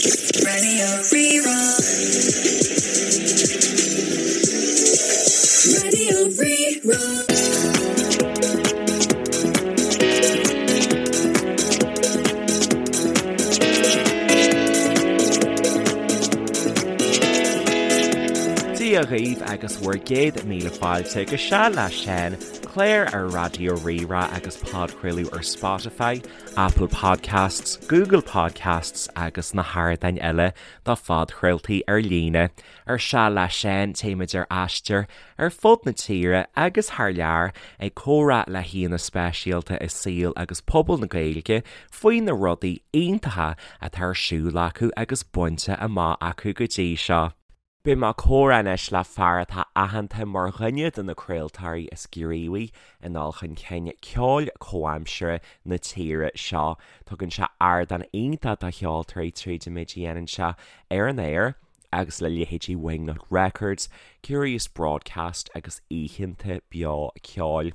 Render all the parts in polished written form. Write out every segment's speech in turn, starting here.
Radio Rí-Rá. Radio Rí-Rá. Dia dhaoibh agus bhur gcéad míle fáilte go Seal le Seán, clár ar Raidió Rí-Rá agus podchraoladh ar Spotify, Apple Podcasts, Google Podcasts agus na hardáin eile do phodchraoltaí ar líne. Ar Seal le Seán téimid ar aistear ar fud na tíre agus thar lear ag comhrá le haíonna speisialta i saol agus pobal na Gaeilge faoi na rudaí iontacha atá ar siúl acu agus bainte amach acu go dtí seo. Beidh mé ag comhrá anois le fear atá aitheanta mar dhuine de na craoltóirí is gníomhaí i ndul chun cinn ceoil comhaimseartha na tíre seo. Tugann sé ardán iontach do cheoltóirí tríd an méid a dhéanann sé ar an aer agus le leithéidí Wingnut Records, Curious Broadcast agus oícheanta beo ceoil.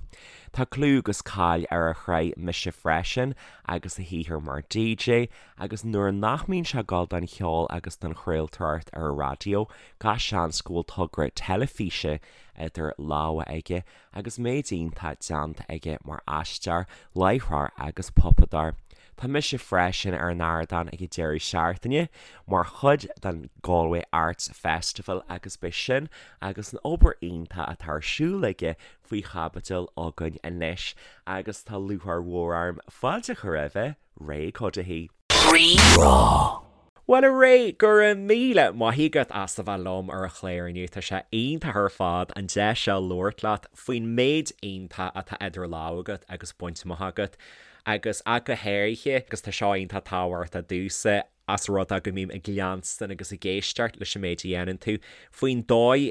Tá clú agus cáil ar a shraith Mise Freisin agus a shaothar mar DJ Agus nuair nach mbíonn sé ag gabháil don cheol agus don chraoltóireacht ar an raidió, gach seans go bhfuil togra teilifíse idir lámha aige agus méid iontach déanta aige mar aisteoir, láithreoir agus puipeadóir. Tá mise freisin ar an ardán ag an deireadh seachtaine mar chuid den Galway Arts Festival agus beidh sin agus an obair iontach atá ar siúl aige faoi chaibidil againn anois agus tá lúcháir mhór orm fáilte a chur roimhe. Ray Cuddihy. Rí-Rá. Bhuel a Ray, go raibh míle maith agat as a bheith liom ar an chlár inniu. Tá sé iontach ar fad an deis seo labhairt leat faoin méid iontach atá idir lámha agat agus bainte amach agat agus ach go háirithe agus tá seo iontach tábhachtach domhsa as rud é go mbím ag leanstan agus ag éisteacht leis an méid a dhéanann tú faoin dóigh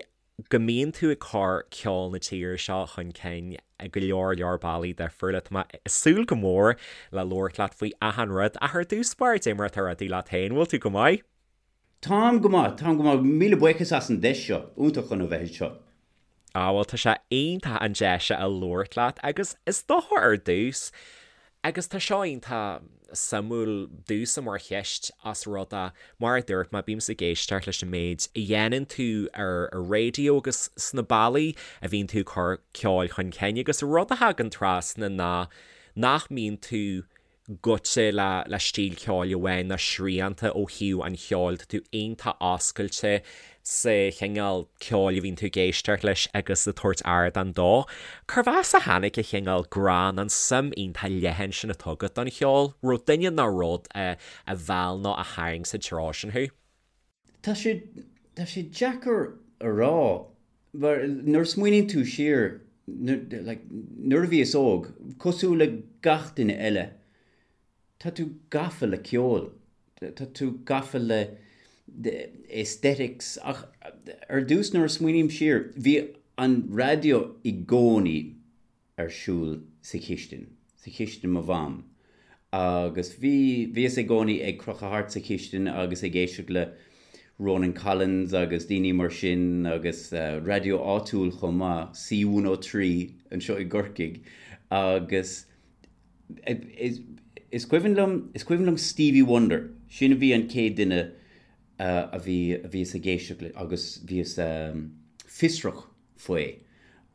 go mbíonn tú ag cur ceol na tíre seo chun cinn i go leor leor bealaí difriúla. Tá mé ag súil go mór le labhairt leat faoi achan rud ach ar dtús báire, cad é mar atá rudaí leat féin, bhfuil tú go maith? Táim go maith, táim go maith. Míle buíochas as an deis seo, iontach chun a bheith anseo. Ah bhuel tá sé iontach an deis seo a labhairt leat agus is dócha ar dtús, Agus tá seo iontach suimiúil domhsa mar cheist as rud é, mar a dúirt mé, bímse ag éisteacht leis an méid a dhéanann tú ar an raidió agus sna bealaí a bhíonn tú ag cur ceoil chun cinn agus rud a thagann trasna ná nach mbíonn tú gaibhte le le stíl ceoil amháin ná srianta ó thaobh an cheoil, tá tú iontach oscailte sa chineál ceoil a bhíonn tú ag éisteacht leis agus ag tabhairt ardán dó. Cérbh as a tháinig an chineál grá nó an suim iontach leathan sin atá agat don cheol? Raibh duine nó rud a mheall nó a tharraing sa treo sin thú? Tá sé, tá sé deacair a rá mar nuair a smaoiníonn tú siar, like, nuair a bhíos óg, cosúil le gach duine eile, Tá tú gafa le ceol, tá tú gafa le aesthetics ach ar dtús nuair a smaoiním siar, bhí an raidió i gcónaí ar siúl sa chistin, sa chistin mo mham agus bhí, bhíos i gcónaí ag crochadh thart sa chistin agus ag éisteacht le Ronan Collins agus daoine mar sin agus raidió áitiúil chomh maith, C103 anseo i gCorcaigh agus Is cuimhin liom, is cuimhin liom Stevie Wonder, sin a bhí an chéad duine a bhí, a bhíos ag éisteacht le agus bhíos fiosrach faoi.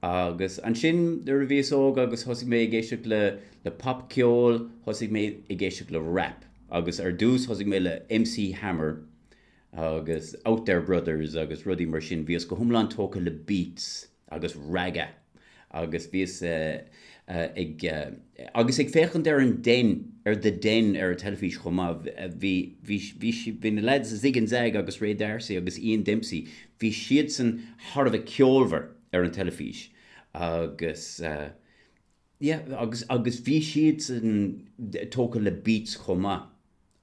Agus ansin nuair a bhíos óg agus thosaigh mé ag éisteacht le, le popcheol, thosaigh mé ag éisteacht le rap agus ar dtús thosaigh mé le MC Hammer agus Outhere Brothers agus rudaí mar sin, bhíos go hiomlán tógtha le beats agus ragga agus bhíos ag agus ag féachaint ar an Den, ar The Den ar an teilifís chomh maith, bhí, bhí, bhí, bhí na lads Zig and Zag agus Ray D'Arcy agus Ian Dempsey, bhí siadsan thar a bheith ceolmhar ar an teilifís agus yeah agus, agus bhí siadsan tógtha le beats chomh maith.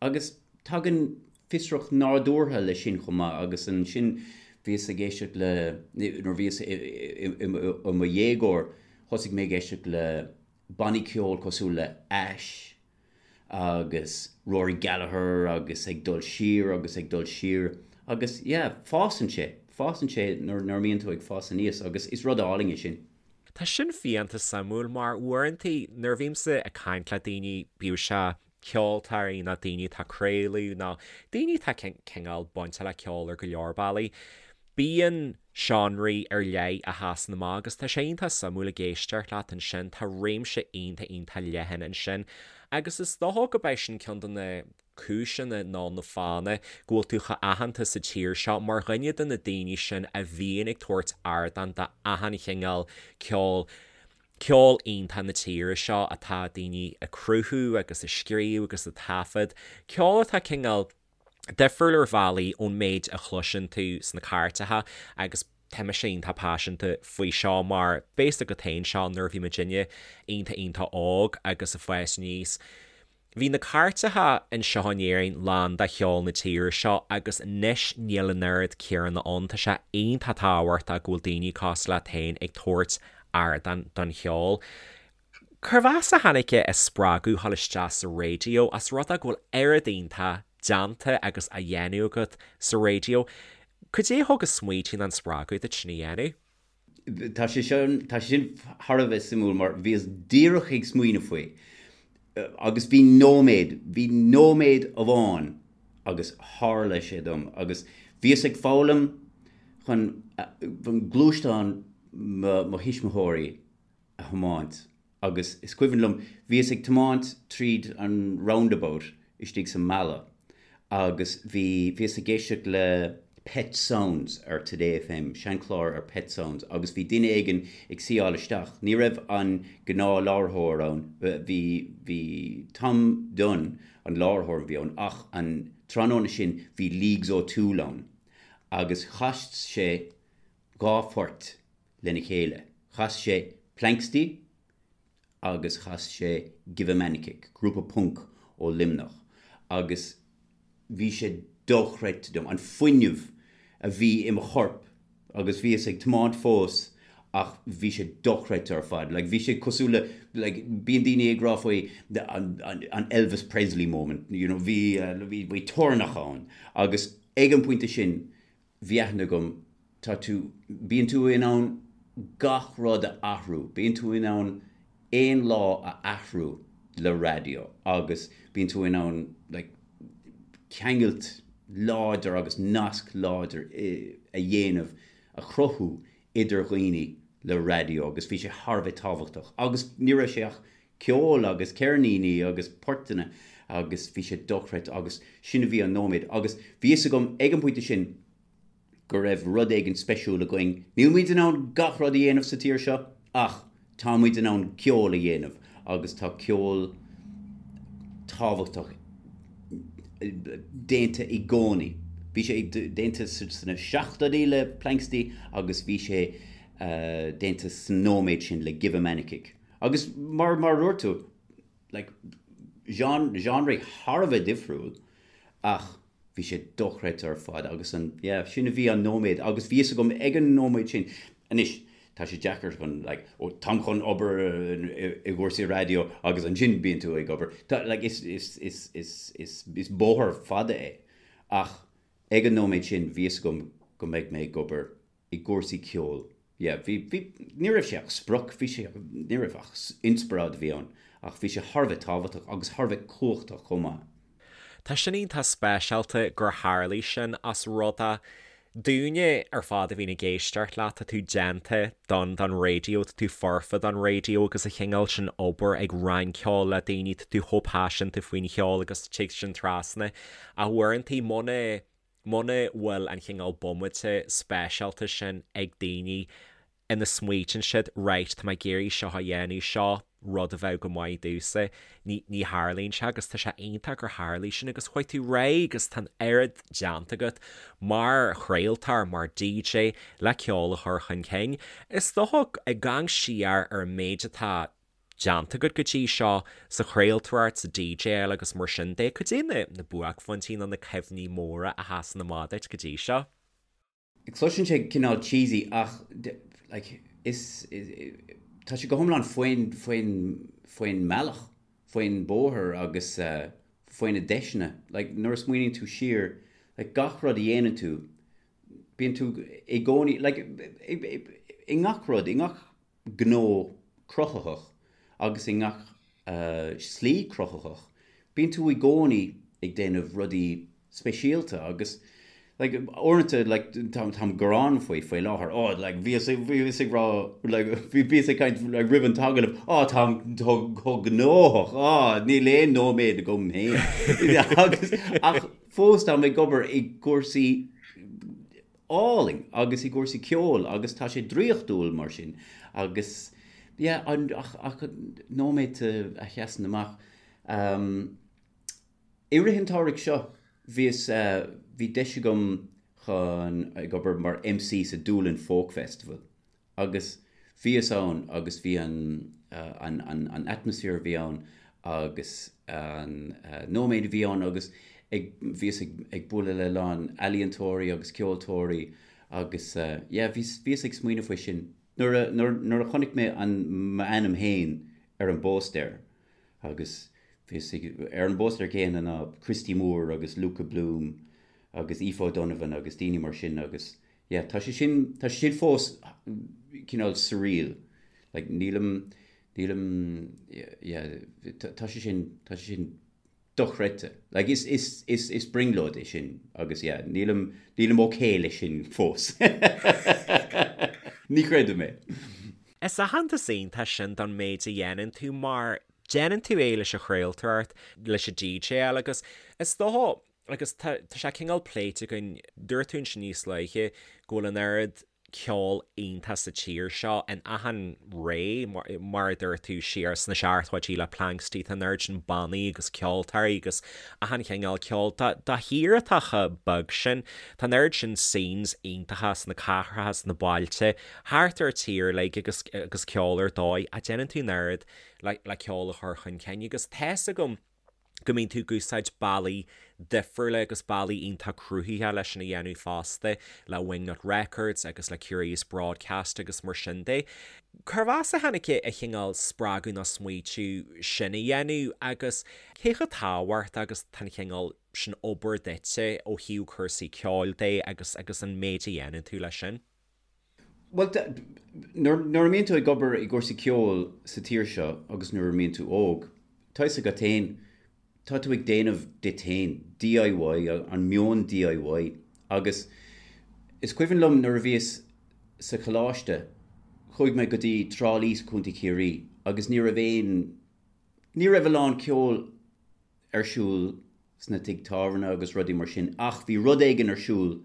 Agus tagann fiosracht nádúrtha leis sin chomh maith agus ansin bhíos ag éisteacht le, nuair a bhíos i mo dhéagóir, thosaigh mé ag éisteacht le bannaí ceoil cosúil le Ash agus Rory Gallagher agus ag dul siar agus ag dul siar agus yeah, fásann sé, fásann sé nuair a mbíonn tú ag fás aníos agus is rud álainn é sin. Tá sin fiánta suimiúil mar uaireanta nuair a bhímse ag caint le daoine, bíodh sé. ceoltóirí nó daoine atá ag craoladh nó daoine atá cineál bainte le ceol ar go leor bealaí. Bíonn seánraí ar leith a sheasann amach agus tá sé iontach suimiúil ag éisteacht leat ansin, tá réimse iontach iontach leathan ansin agus is dócha go b'é sin ceann de na cúiseanna nó na fáthanna go bhfuil tú chomh aitheanta sa tír seo mar dhuine de na daoine sin a bhíonn ag tabhairt ardán d'achan chineál ceoil. Ceol iontach na tíre seo atá daoine ag cruthú agus ag scríobh agus ag taifead, ceol atá cineál difriúil ar bhealaí ón méid a chloiseann tú sna cairteacha agus tá mise iontach paiseanta faoi seo mar b'fhios agat féin seo nuair a bhí muidinne iontach iontach óg agus ag fás aníos. Bhí na cairteacha anseo in Éirinn lán de cheol na tíre seo agus anois níl an oiread céanna ann. Tá sé iontach tábhachtach go bhfuil daoine cosúil leat féin ag tabhairt ardán don cheol. Cérbh as a tháinig an spreagadh a dhul isteach sa raidió as rud é go bhfuil oiread iontach déanta agus á dhéanamh agat sa raidió? Cad é a thug an smaoitiú nó an spreagadh duit sin a dhéanamh? Tá sé sin, tá sé sin thar a bheith suimiúil mar bhíos díreach ag smaoineamh faoi agus bhí nóiméad, bhí nóiméad amháin agus tharla sé dom agus bhíos ag foghlaim chun gluaisteán mo mo thuismitheoirí a thiomáint agus is cuimhin liom, bhíos ag tiomáint tríd an roundabout istigh sa mbaile agus bhí, bhíos ag éisteacht le Pet Sounds ar Today FM, seanchlár ar Pet Sounds agus bhí duine éigin ag suíáil isteach, ní raibh an gnáthláithreoir ann, bhí, bhí Tom Dunne an láithreoir a bhí ann ach an tráthnóna sin bhí Leagues O'Toole ann agus chas sé 2 phort lena chéile. Chas sé Planxty agus chas sé Give a Man a Kick, grúpa punc ó Luimneach, agus bhí sé dochreidte dom, an fuinneamh a bhí i mo chorp agus bhíos ag tiomáint fós ach bhí sé dochreidte ar fad. Like, bhí sé cosúil le, like, bíonn daoine ag rá faoi an, an, an Elvis Presley moment, you know, bhí, bhí, bhí toirneach ann agus ag an bpointe sin bhí aithne agam, tá tú, bíonn tú in ann gach rud a athrú, bíonn tú in ann aon lá a athrú le raidió agus bíonn tú in ann like ceangailt láidir agus nasc láidir a dhéanamh, a chruthú idir dhaoine le raidió agus bhí sé thar a bheith tábhachtach agus ní raibh sé ach ceol agus ceirníní agus portanna agus bhí sé dochreidte agus sin a bhí an nóiméad agus bhí fhios agam ag an bpointe sin go raibh rud éigin speisiúil againn. Níl muid in ann gach rud a dhéanamh sa tír seo ach tá muid in ann ceol a dhéanamh agus tá ceol tábhachtach déanta i gcónaí. Bhí sé déanta sna seachtóidí le Planxty agus bhí sé déanta sa nóiméad sin le Give a Man a Kick. Agus mar mar a dúirt tú, like, genre, genre thar a bheith difriúil ach bhí sé dochreidte ar fad agus an, yeah, sin a bhí an nóiméad agus bhí fhios agam ag an nóiméad sin, anois, tá sé deacair chun, like, ó, táim chun obair i gcúrsaí raidió agus ansin bíonn tú ag obair. Tá, like, is, is, is, is, is, is bóthar fada é ach ag an nóiméad sin bhí fhios agam go mbeidh mé ag obair i gcúrsaí ceoil. Yeah, bhí, bhí, ní raibh sé ach sprioc, bhí sé, ní raibh ach inspioráid a bhí ann, ach bhí sé thar a bheith tábhachtach agus thar a bheith cumhachtach chomh maith. Tá sin iontach speisialta gur tharlaigh sin as rud é dúinne ar fad a bhíonn ag éisteacht leat, tá tú déanta don, don raidió, tá tú foirfe don raidió agus an chineál sin obair ag roinnt ceoil le daoine, tá tú chomh paiseanta faoin cheol agus tig sin trasna. Ach uaireantaí muna Muna bhfuil an chineál bomaite speisialta sin ag daoine ina smaoitíonn siad 'right, tá mé ag iarraidh seo a dhéanamh, seo rud a bheadh go maith domhsa', ní, ní tharlaíonn sé agus tá sé iontach gur tharlaigh sin agus chuaigh tú ar aghaidh agus tá an oiread déanta agat mar chraoltóir, mar DJ le ceol a chur chun cinn. Is dócha ag amharc siar ar an méid atá déanta agat go dtí seo sa chraoltóireacht, sa DJáil agus mar sin de, cad é na na buaicphointí nó na cuimhní móra a sheasann amach duit go dtí seo? Cloiseann sé cineál cheesy ach like is tá sé go hiomlán faoin faoin faoin mbealach, faoin bóthar agus faoi na deiseanna. Like nuair a smaoiníonn tú siar, like gach rud a dhéanann tú, bíonn tú i gcónaí like i ngach rud, i ngach gnó cruthaitheach agus i ngach slí cruthaitheach. Bíonn tú i gcónaí ag déanamh rudaí speisialta agus like uaireanta like táim ag gearán faoi faoi láthair oh like bhíos bhíos ag rá like bhíos ag caint like roimh an t-agallamh oh táim chomh gnóthach oh níl aon nóiméad agam féin agus ach fós táim ag obair i gcúrsaí álainn agus i gcúrsaí ceoil agus tá sé draíochtúil mar sin agus yeah an ach ach nóiméad a sheasann amach um, I rith an tsamhraidh seo bhíos bhí deis agam chun ag obair mar MC sa Doolin Folk Festival agus bhíos ann agus bhí an an an an atmaisféar a bhí ann agus an nóiméad a bhí ann agus ag bhíos ag ag bualadh le a lán ealaíontóirí agus ceoltóirí agus yeah bhíos bhíos ag smaoineamh faoi sin nuair a nuair nuair a chonaic mé an m'ainm féin ar an bpóstaer Agus bhíos ag, ar an bpóstaer céanna ná Christy Moore agus Luka Bloom agus Aoife O'Donovan agus daoine mar sin agus yeah, tá sé sin, tá sé sin fós cineál surreal. Like nílim, nílim, yeah, tá sé sin, tá sé sin dochreidte. Like is, is, is, is brionglóid é sin agus yeah, nílim, nílim ok leis sin fós. Ní chreidim é. Is aitheantas iontach sin don méid a dhéanann tú mar déanann tú é leis an chraoltóireacht, leis an DJáil agus is dócha, agus tá sé cineál pléite againn, dúirt tú ansin níos luaithe go bhfuil an oiread ceol iontach sa tír seo in achan ré, mar a dúirt tú, siar sna seachtóidí le Planxty, tá an oiread sin bannaí agus ceoltóirí agus achan chineál ceoil. Do thír atá chomh beag sin, tá an oiread sin scenes iontacha sna cathracha, sna bailte, thart ar an tír uilig agus agus ceol ar dóigh ach déanann tú an oiread le le ceol a chur chun cinn agus tá's agam go mbíonn tú ag úsáid bealaí difriúla agus bealaí iontach cruthaitheacha leis sin a dhéanamh fosta le Wingnut Records agus le Curious Broadcast agus mar sin de. Cérbh as a tháinig an cineál spreagadh nó smaoitiú sin a dhéanamh agus cé chomh tábhachtach agus tá an chineál sin obair duitse ó thaobh cúrsaí ceoil de agus agus an méid a dhéanann tú leis sin? Bhuel, nuair a mbíonn tú ag obair i gcúrsaí ceoil sa tír seo agus nuair a mbíonn tú óg, tá fhios agat féin, tá tú ag déanamh duit féin, DIY, an meon DIY. Agus is cuimhin liom nuair a bhíos sa choláiste, chuaigh mé go dtí Trá Lí sa Chontae Chiarraí agus ní raibh aon, ní raibh a lán ceoil ar siúl sna tigh tábhairne agus rudaí mar sin ach bhí rud éigin ar siúl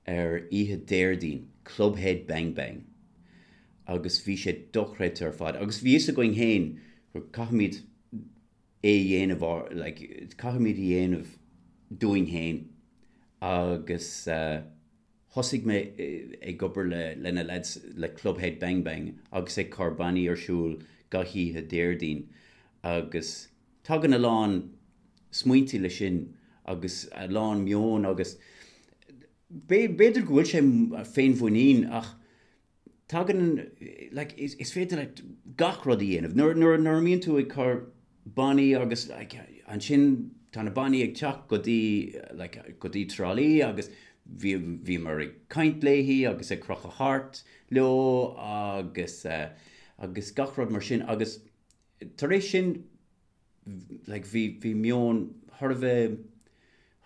ar oíche Déardaoin, Clubhead Bang Bang, agus bhí sé dochreidte ar fad agus bhí fhios againn féin gur caithfimid é a dhéanamh, like, caithfimid a dhéanamh dúinn féin agus eh, thosaigh mé ag obair le le na lads le Clubhead Bang Bang agus ag cur bannaí ar siúl gach oíche Déardaoin agus Tagann a lán smaointe leis sin agus a lán meon agus b'fhéidir go bhfuil sé féinmhuinín ach tagann, like, is féidir leat gach rud a dhéanamh. Nuair, nuair, nuair a mbíonn tú ag cur bannaí agus like, ansin tá na bannaí ag teacht go dtí, like, go dtí Trá Lí agus bhí, bhíomar ag caint léi agus ag crochadh thart leo agus, eh, agus gach rud mar sin agus Tar éis sin, like, bhí, bhí meon thar a bheith,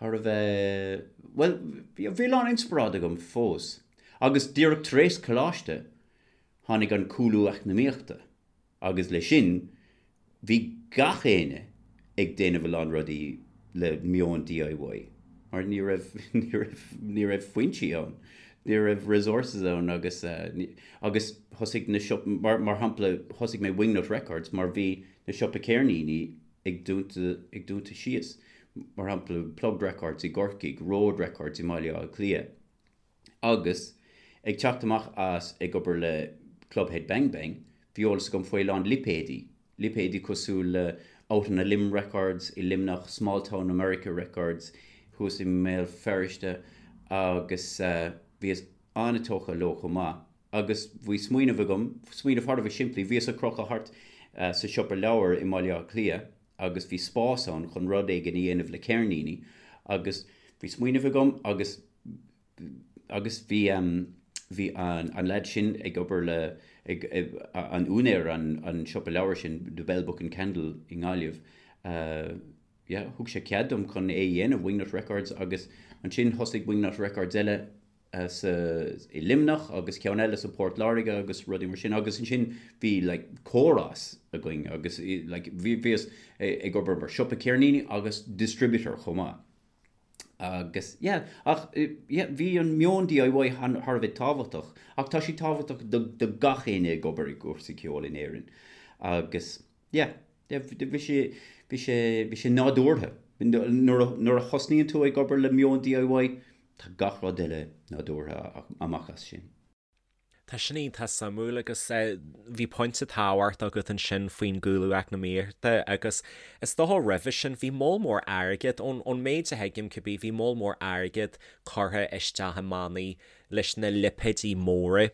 thar a bheith, bhuel, bhí, bhí a lán inspioráid agam fós. Agus díreach tar éis coláiste, tháinig an cúlú eacnamaíochta agus le sin, bhí gach éinne ag déanamh a lán rudaí le meon DIY mar ní raibh, ní raibh, ní raibh foinsí ann, ní raibh resources ann agus, agus thosaigh na siopaí, mar, mar shampla, thosaigh mé Wingnut Records mar bhí na siopa ceirníní ag dúnta, ag dúnta síos. Mar shampla, Plugged Records i gCorcaigh, Road Records i mBaile Átha Cliath. Agus ag teacht amach as ag obair le Clubhead Bang Bang, bhí eolas agam faoi a lán lipéidí, lipéidí cosúil le Out on a Limb Records i Luimneach, Small Town America Records thuas i mBéal Feirste agus bhíos an-tógtha leo chomh maith. Agus bhí smaoineamh agam, smaoineamh thar a bheith simplí, bhíos ag crochadh thart sa siopa leabhar i mBaile Átha Cliath agus bhí spás ann chun rud éigin a dhéanamh le ceirníní agus bhí smaoineamh agam agus agus bhí bhí an an leaid sin ag obair le ag an úinéir an an siopa leabhar sin The Bell Book and Candle i nGaillimh. yeah, thug sé cead dom chun é a dhéanamh, Wingnut Records, agus ansin thosaigh Wingnut Records eile sa, i Luimneach agus ceann eile sa Port Láirge agus rudaí mar sin agus ansin bhí like córas againn agus like bhí, bhíos ag obair mar siopa ceirníní agus distributor chomh maith. Agus yeah, ach yeah, bhí an meon DIY thar a bheith tábhachtach ach tá sé tábhachtach do, do gach éinne ag obair i gcúrsaí ceoil in Éirinn agus yeah, yeah, bhí sé, bhí sé, bhí sé nádúrtha. Nuair a, nuair a thosnaíonn tú ag obair le meon DIY, tá gach rud eile nádúrtha amach as sin. Tá sin iontach suimiúil agus bhí pointe tábhachtach agat ansin faoin gcúlú eacnamaíochta agus is dócha roimhe sin bhí moll mór airgid, ón méid a thuigim cibé, bhí moll mór airgid curtha isteach i mbannaí leis na lipéidí móra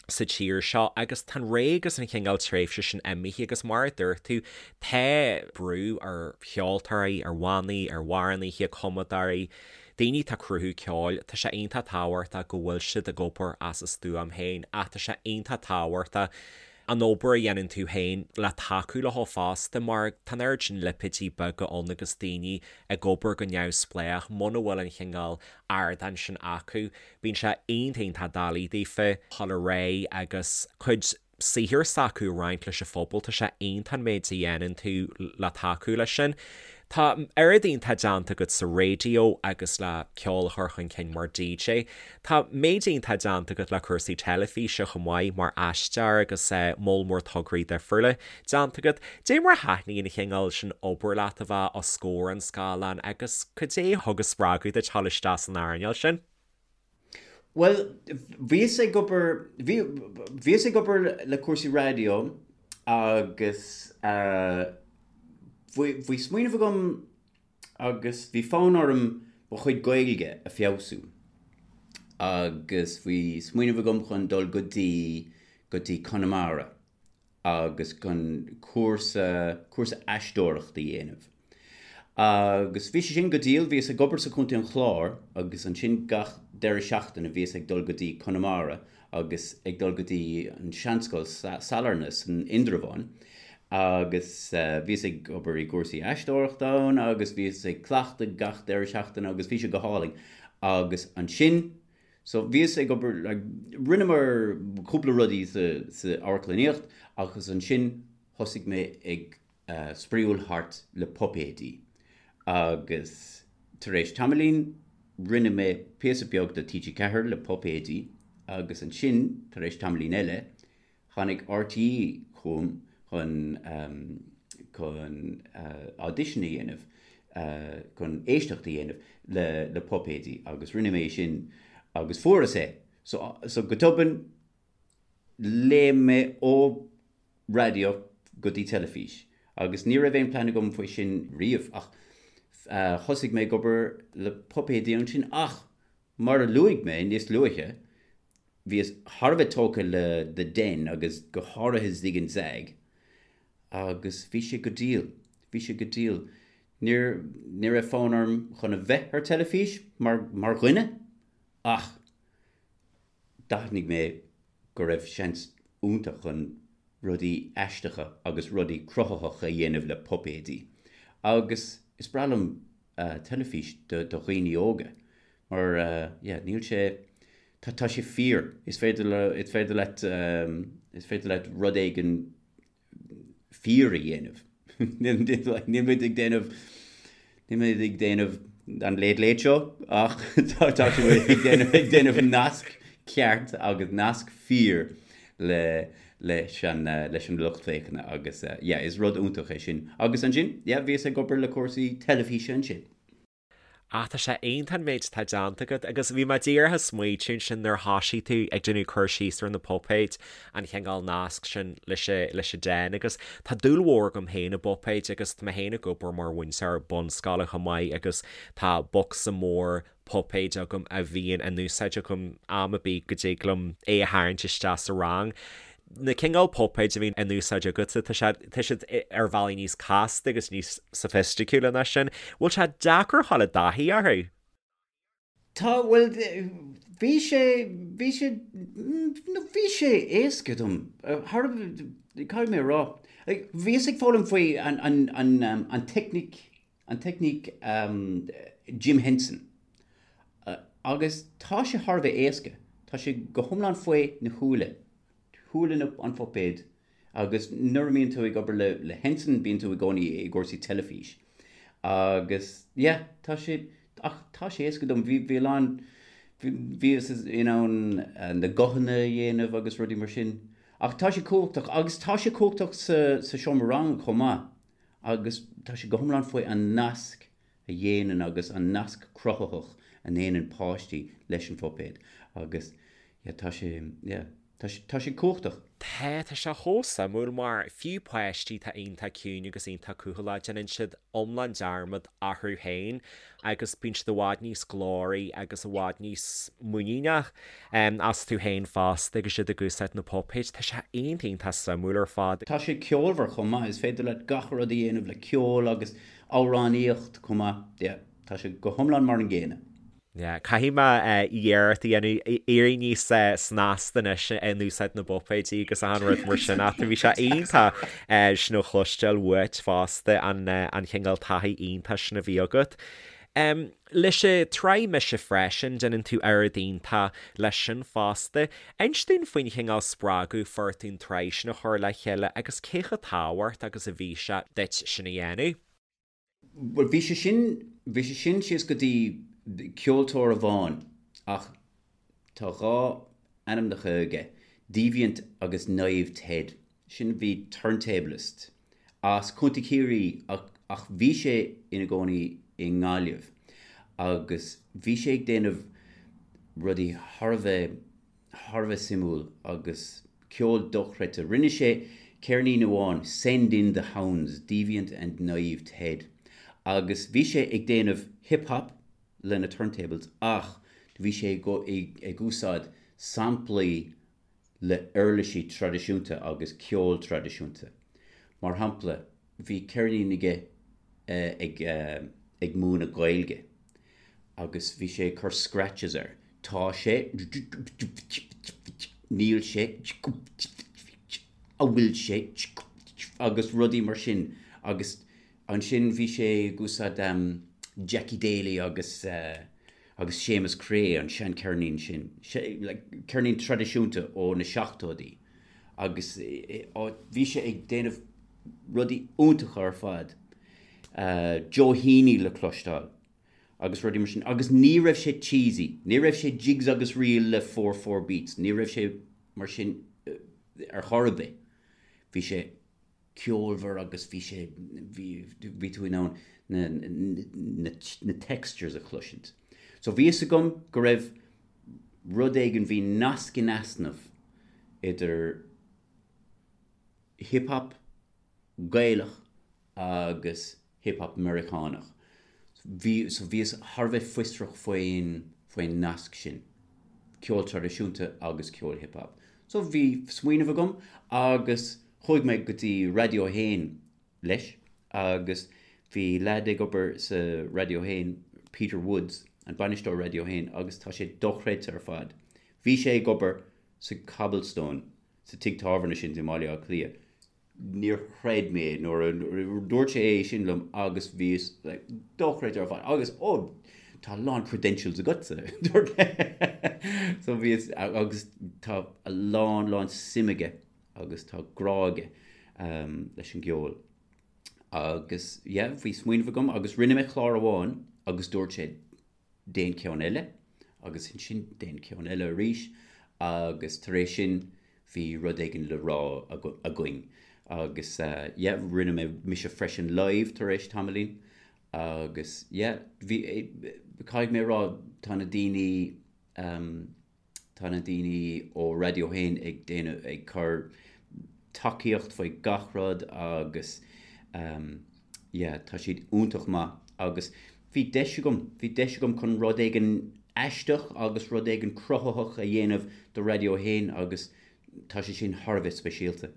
sa tír seo agus tá an ré agus an chineál tréimhse sin imithe agus mar a dúirt tú tá brú ar cheoltóirí, ar bhannaí, ar amhránaithe, cumadóirí, Daoine atá ag cruthú ceoil, tá sé iontach tábhachtach go bhfuil siad ag obair as a stuaim féin ach tá sé iontach tábhachtach an obair a dhéanann tú féin le tacú leo fosta mar tá an oiread sin lipéidí beaga ann agus daoine ag obair go neamhspleách muna bhfuil an chineál ardáin sin acu bíonn sé iontach iontach doiligh daofa dul ar aghaidh agus cuid saothar s'acu a roinnt leis an phobal. Tá sé iontach an méid a dhéanann tú le tacú leis sin. Tá oiread iontach déanta agat sa raidió agus le ceol a chur chun cinn mar DJ. Tá méid iontach déanta agat le cúrsaí teilifíse chomh maith mar aisteoir agus moll mór tograí difriúla déanta agat. Dé mar a thaitníonn an chineál sin obair leat a bheith os comhair an scáileáin agus cad é a thug an spreagadh duit dul isteach san earnáil sin? Bhuel, bhíos ag obair, bhí, bhíos ag obair le cúrsaí raidió agus bhí, bhí smaoineamh agam agus bhí fonn orm mo chuid Gaeilge a feabhsú agus bhí smaoineamh agam chun dul go dtí, go dtí Conamara agus chun cúrsa, cúrsa aisteoireachta a dhéanamh. Agus bhí sé sin go diail, bhíos ag obair sa Chontae an Chláir agus ansin gach deireadh seachtaine bhíos ag dul go dtí Conamara agus ag dul go dtí an Seanscoil Sailearna san Indreabhán agus bhíos ag obair i gcúrsaí aisteoireachta ann agus bhíos ag cleachtadh gach deireadh seachtaine agus bhí sé go hálainn. Agus ansin So bhíos ag obair, like, rinneamar cúpla rudaí sa, sa amharclannaíocht agus ansin thosaigh mé ag spraíúil thart le puipéidí agus tar éis tamaillín rinne mé píosa beag do TG4 le puipéidí agus ansin tar éis tamaillín eile Tháinig RTÉ chugam chun chun audition a dhéanamh, chun éisteacht a dhéanamh le le puipéidí agus rinne mé sin agus fuaireas é. So so go tobann léim mé ó raidió go dtí teilifís agus ní raibh aon plean agam faoi sin riamh ach thosaigh mé ag obair le puipéidí ansin ach mar a luaigh mé níos luaithe, Bhíos thar a bheith tógtha le The Den agus go háirithe Zig and Zag agus bhí sé go diail, bhí sé go diail. Níor, ní raibh fonn orm chun a bheith ar teilifís mar, mar dhuine ach d'aithnigh mé go raibh seans iontach chun rudaí aisteacha agus rudaí cruthaitheacha a dhéanamh le puipéidí agus is breá liom teilifís do dhaoine óga mar yeah níl sé tá tá sé fíor is féidir le is féidir leat is féidir leat rud éigin fíor a dhéanamh níl muid ag déanamh níl muid ag déanamh an Late Late Show ach tá tá muid ag déanamh ag déanamh nasc ceart agus nasc fíor le leis an leis an lucht féachana agus yeah is rud iontach é sin agus ansin yeah bhíos ag obair le cúrsaí teilifíse ansin. Ah tá sé iontach an méid atá déanta agat agus bhí mé díreach ag smaoitiú ansin nuair a thosaigh tú ag déanamh cur síos ar na puipéid, an chineál nasc sin leis leis an Den agus tá dúil mhór agam féin i bpuipéid agus tá mé féin ag obair mar mhúinteoir bunscoile chomh maith agus tá bocsa mór puipéid agam a bhíonn in úsáid agam am ar bith go dtig liom é a tharraingt isteach sa rang. Na cineál puipéid a bhíonn in úsáid agatsa, tá sé, tá siad ar bhealaí níos casta agus níos soifisticiúla ná sin. Bhfuil sé deacair a dhul i dtaithí orthu? Tá, bhuel, bhí sé, bhí sé, nó bhí sé éasca dom, thar, caithfidh mé a rá. Bhíos ag foghlaim faoi an, an, an, an teicníc. an teicníc Jim Henson. Agus tá sé thar a bheith éasca. Tá sé go hiomlán faoi na shúile. Shúile an phuipéid. Agus nuair a mbíonn tú ag obair le le Henson bíonn tú i gcónaí i gcúrsaí teilifís. Agus yeah, tá sé, ach tá sé éasca dom. Bhí, bhí a lán, bhíos in ann na guthanna a dhéanamh agus rudaí mar sin. Ach tá sé cumhachtach agus tá sé cumhachtach sa sa seomra ranga chomh maith. Agus tá sé go hiomlán faoi an nasc a dhéanann agus an nasc cruthaitheach a ndéanann páistí leis an phuipéad agus yeah tá sé yeah tá sé tá sé cumhachtach. Tá, tá sé chomh suimiúil mar fiú páistí atá iontach ciúin agus iontach cúthaileach déanann siad iomlán dearmad orthu féin agus bíonn siad i bhfad níos glóraí agus i bhfad níos muiníneach astu féin fosta agus iad ag úsáid na puipéid. Tá sé iontach iontach suimiúil ar fad. Tá sé ceolmhar chomh maith, is féidir leat gach rud a dhéanamh le ceol agus amhránaíocht chomh maith. Yeah, tá sé go hiomlán mar an gcéanna. Yeah, caithfidh mé iarracht a dhéanamh éirí níos snasta anois in úsáid na bpuipéidí agus achan rud mar sin ach bhí sé iontach sin a chloisteáil uait fosta, an an chineál taithí iontach sin a bhí agat. Leis an tsraith Mise Freisin, déanann tú oiread iontach leis sin fosta. Inis dúinn faoin chineál spreagadh a fuair tú an tsraith sin a chur le chéile agus cé chomh tábhachtach agus a bhí sé duit sin a dhéanamh. Bhuel, bhí sé sin, bhí sé sin síos go dtí ceoltóir amháin ach tá dhá ainmneacha aige, Deviant agus Naive Ted. Sin bhí turntablist as Contae Chiarraí ach, ach bhí sé ina gcónaí i nGaillimh agus bhí sé ag déanamh rudaí thar a bheith thar a bheith suimiúil agus ceol dochreidte. Rinne sé ceirnín amháin, Send In The Hounds, Deviant and Naive Ted, agus bhí sé ag déanamh hip hop lena turntables ach bhí sé ag úsáid samplaí le uirlisí traidisiúnta agus ceol traidisiúnta. Mar shampla, bhí ceirnín aige ag ag múineadh Gaeilge agus bhí sé ag cur scratches air. Tá sé. Níl sé. An bhfuil sé. Agus rudaí mar sin. Agus ansin bhí sé ag úsáid Jackie Daly agus agus Séamus Creagh, an seancheirnín sin. Like ceirnín traidisiúnta ó na seachtóidí. Agus bhí sé ag déanamh rudaí iontacha ar fad. Joe Heaney le cloisteáil agus rudaí mar sin. Agus ní raibh sé cheesy, ní raibh sé jigs agus reel le 4/4 beats, ní raibh sé mar sin ar chor ar bith. Bhí sé ceolmhar agus bhí sé, bhí, bhí tú in ann na, na, na textures a chloisint. So bhí fhios agam go raibh rud éigin, bhí nasc in easnamh idir hip hop Gaelach agus hip hop Meiriceánach. Bhí, so bhíos thar a bheith fiosrach faoin, faoin nasc sin, ceol traidisiúnta agus ceol hip hop. So bhí smaoineamh agam agus chuaigh mé go dtí Raidió 1 leis agus bhí leaid ag obair sa Raidió 1, Peter Woods, an bainisteoir Raidió 1 agus tá sé dochreidte ar fad. Bhí sé ag obair sa Cobblestone, sa tigh tábhairne sin i mBaile Átha Cliath. Níor chreid mé nuair a dúirt sé é sin liom agus bhíos like dochreidte ar fad agus oh tá a lán credentials agatsa dúirt so bhíos agus tá a lán lán suim aige agus tá grá aige um, leis an gceol. Agus yeah, bhí smaoineamh agam agus rinne mé clár amháin agus dúirt sé déan ceann eile agus ansin déan ceann eile arís agus tar éis sin bhí rud éigin le rá againn agus yeah rinne mé mise freisin live tar éis tamaillín agus yeah bhí caithfidh mé a rá tá na daoine Tá na daoine ó Raidió 1 ag déanamh, ag cur tacaíocht faoi gach rud agus yeah tá siad iontach maith agus bhí deis agam, bhí deis agam chun rud éigin aisteach agus rud éigin cruthaitheach a dhéanamh do Raidió 1 agus tá sé sin thar a bheith speisialta.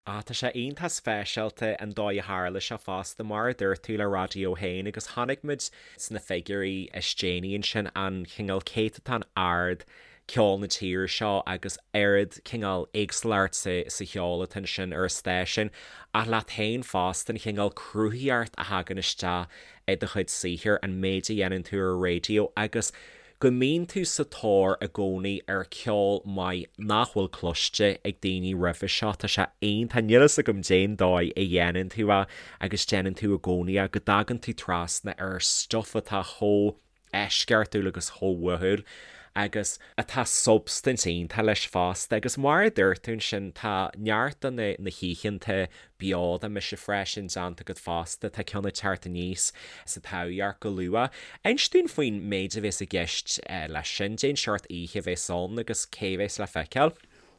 Ah, tá sé iontach speisialta an dóigh a tharla sé fosta, mar a dúirt tú le Raidió 1 agus chonaic muid sna figiúirí is déanaí ansin an cineál céatadán ard. ceol na tíre seo agus oiread cineál éagsúlacht sa sa cheol atá ansin ar an stáisiún ach leat féin fosta an chineál cruthaitheacht a thagann isteach i do chuid saothair, an méid a dhéanann tú ar an raidió agus go mbíonn tú sa tóir i gcónaí ar ceol maith nach bhfuil cloiste ag daoine roimhe seo. Tá sé iontach, níl fhios agam cén dóigh a dhéanann tú é agus déanann tú i gcónaí é, go dtagann tú trasna ar stuff atá chomh eisceachtúil agus chomh uathúil agus atá substaint iontach leis fosta. Agus mar a dúirt tú ansin, tá neart de na na hoícheanta beo de Mise Freisin déanta agat fosta, tá ceann ag teacht aníos sa Taibhdhearc go luath. Inis dúinn faoin méid a bhéas i gceist leis sin, cén seort oíche a bhéas ann agus cé a bhéas le feiceáil?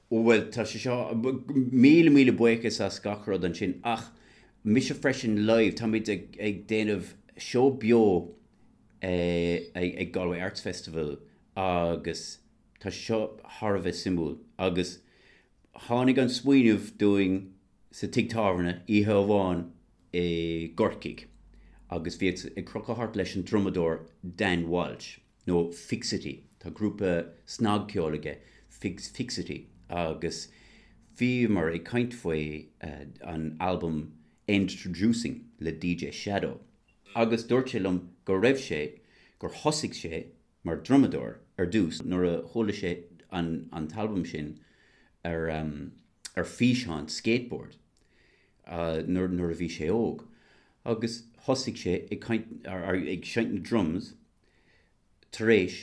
Ó bhuel, tá sé seo, míle míle buíochas as gach rud ansin ach Mise Freisin Live, táimid ag déanamh seó beo ag Galway Arts Festival agus tá sé seo thar a bheith suimiúil agus tháinig an smaoineamh dúinn sa tigh tábhairne oíche amháin i gCorcaigh agus bhíos ag crochadh thart leis an drumadóir Dan Walsh nó Fixity, tá grúpa snagcheoil aige Fixity agus bhíomar ag caint faoi an albam Endtroducing le DJ Shadow. Agus dúirt sé liom go raibh sé, gur thosaigh sé mar drumadóir ar dtús nuair a chuala sé an an t-albam sin ar ar físeán skateboard nuair nuair a bhí sé óg. Agus thosaigh sé ag caint ag seinnt na drums tar éis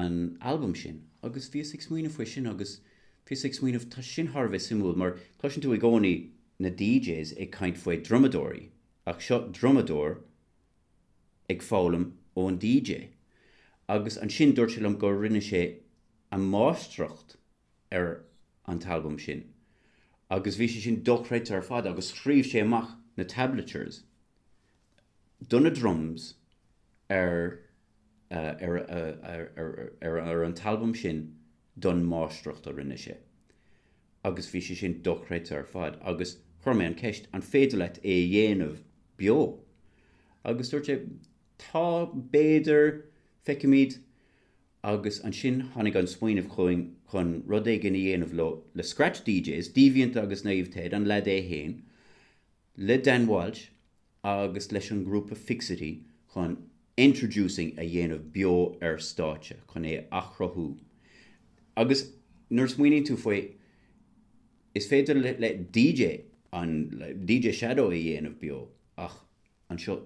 an albam sin. Agus bhíos ag smaoineamh faoi sin agus bhíos ag smaoineamh tá sin thar a bheith suimiúil mar cloiseann tú i gcónaí na DJs ag caint faoi drumadóirí Ach seo drumadóir ag foghlaim ón DJ. Agus ansin dúirt sé liom go rinne sé a máistreacht ar an t-albam sin. Agus bhí sé sin dochreidte ar fad agus scríobh sé amach na tablatures do na drums ar ar ar ar an t-albam sin don máistreacht a rinne sé. agus bhí sé sin dochreidte ar fad agus chuir mé an ceist an féidir leat é a dhéanamh beo? Agus dúirt sé tá, b'fhéidir, feicfimid agus ansin tháinig an smaoineamh chugainn chun rud éigin a dhéanamh leo le Scratch DJs, Deviant agus Naomh Ted, an leaid é fhéin, le Dan Walsh agus leis an ngrúpa Fixity chun Endtroducing a dhéanamh beo ar stáitse, chun é a athchruthú. Agus nuair a smaoiníonn tú faoi, is féidir le DJ an DJ Shadow a dhéanamh beo ach anseo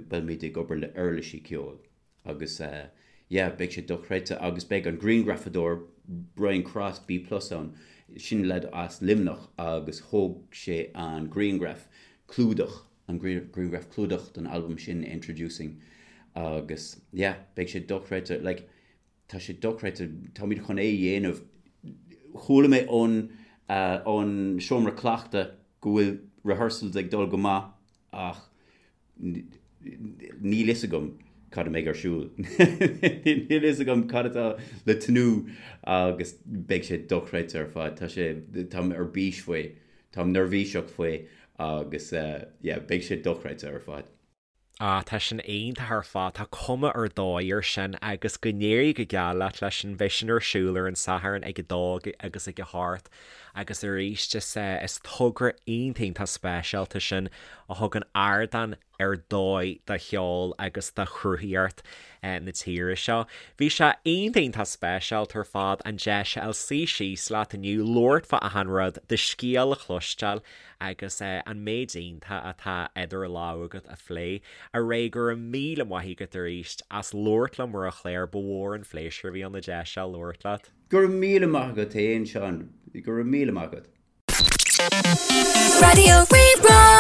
beimid ag obair le uirlisí ceoil. Agus yeah, beidh sé dochreidte agus beidh an grianghrafadóir Brian Cross, B Plus ann, sin leaid as Luimneach agus thóg sé an grianghraf clúdach, an grianghraf clúdach don albam sin Endtroducing agus yeah, beidh sé dochreidte, like tá sé dochreidte, táimid chun é a dhéanamh. Chuala mé ón ón seomra cleachta go bhfuil rehearsals ag dul go maith ach Níl fhios agam cad a mbeidh ar siúl. Níl fhios agam cad atá le tnúth agus beidh sé dochreidte ar fad. Tá sé, táim ar bís faoi, táim neirbhíseach faoi agus yeah, beidh sé dochreidte ar fad. Ah, tá sin iontach ar fad, tá cuma ar dóigh air sin agus go n-éirí go geal leat leis sin, beidh sin ar siúl ar an Satharn ag a dó agus ag a hocht agus arís is, is togra iontach iontach speisialta sin a thugann ardán ar dóigh do cheol agus do chruthaíocht na tíre seo. Bhí sé iontach iontach speisialta ar fad an deis a fháil suí síos leat inniu, labhairt fá achan rud, do scéal a chloisteáil agus an méid iontach atá idir lámha agat a phlé. A Ray, go raibh míle maith agat arís as labhairt liom ar an chlár, ba mhór an phléisiúr a bhí ann an deis seo labhairt leat. Go raibh míle maith agat fhéin, Seán. Go raibh míle maith agat. Raidió Rí-Rá.